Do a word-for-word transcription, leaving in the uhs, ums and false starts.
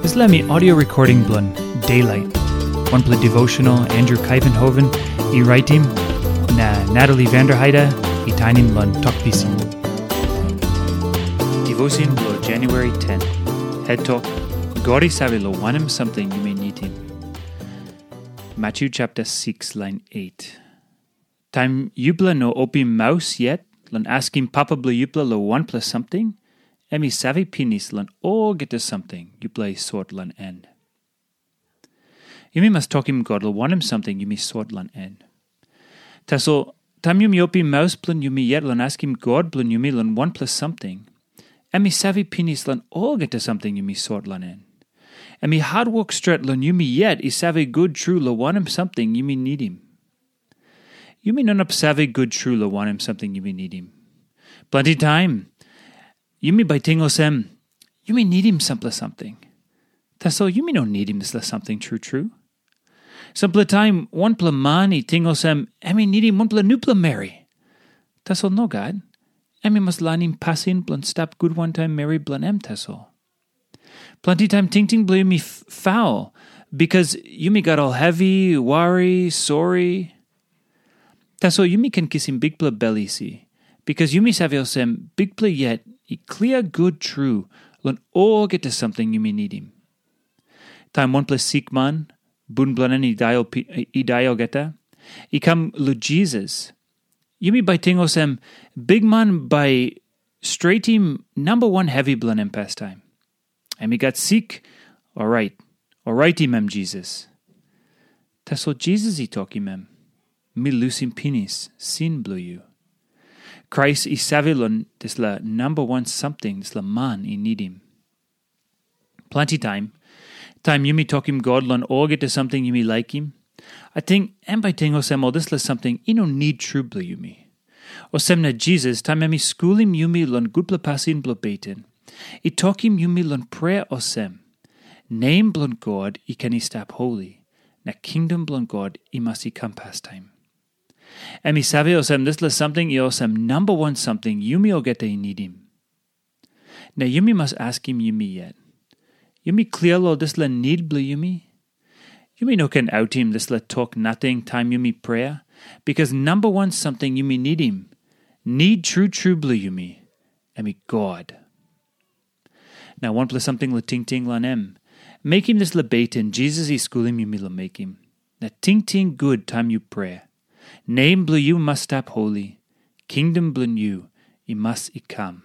Dispela mi audio recording bilong Daylight, wanpela devotional Andrew Kaivenhoven i raitim, na Natalie Vanderheide i tainim long Tok Pisin. Devotion bilong January ten. Head Tok, God i save long wanem samting yumi nidim. Matthew chapter six, line eight. Taim yupela no opim maus yet long askim Papa bilong yupela long wanpela samting, em i save pinis long olgeta samting yupela i sot long en. Yumi mas tokim God long wanem samting yumi sot long en. Tasol, taim yumi opim maus bilong yumi yet long askim God bilong yumi long wanpela samting, em i save pinis long olgeta samting yumi sot long en. Em i hatwok stret long yumi yet i save gut tru long wanem samting yumi nidim. Yumi no inap save gut tru long wanem samting yumi nidim. Planti taim, yumi bai ting olsem, yumi nidim sampela samting. Tasol yumi no nidim dispela samting tru tru. Sampela taim, wanpela man i ting olsem, em i nidim wanpela nupela meri. Tasol nogat, em i mas lainim pasin bilong stap gut wantaim meri bilong em tasol. Planti taim tingting bilong yumi faul, bikas yumi gat ol hevi, wari, sori. Tasol yumi ken kisim bikpela bel isi, bikas yumi save olsem, Bikpela yet i klia gut tru long olgeta samting yumi nidim. Taim wanpela sikman, bun bilong en i dai olgeta, i kam long Jisas, yumi bai ting olsem, Bikman bai stretim namba wan hevi bilong em pastaim. Em i gat sik, orait, oraitim em Jisas. Tasol Jisas i tokim em, Mi lusim pinis sin bilong yu. Krais i save long dispela namba wan samting dispela man i nidim. Planti taim, taim yumi tokim God long olgeta samting yumi laikim, ating em bai ting olsem ol dispela samting i no nid tru bilong yumi. Olsem na Jisas, taim em i skulim yumi long gutpela pasin bilong beten, i tokim yumi long prea olsem, Nem bilong God i ken i stap holi, na kingdom bilong God i mas i kam pastaim. Em i save olsem dispela samting i olsem namba wan samting yumi olgeta i nidim. Na yumi mas askim yumi yet, yumi klia long dispela nid bilong yumi? Yumi no ken autim dispela tok nating taim yumi prea, bikas namba wan samting yumi nidim, nid tru tru bilong yumi, em i God. Na wanpela samting long tingting long em, mekim dispela beten Jisas i skulim yumi long mekim. Na tingting gut taim yu prea. Nem bilong yu mas stap holi, kingdom bilong yu i mas i kam.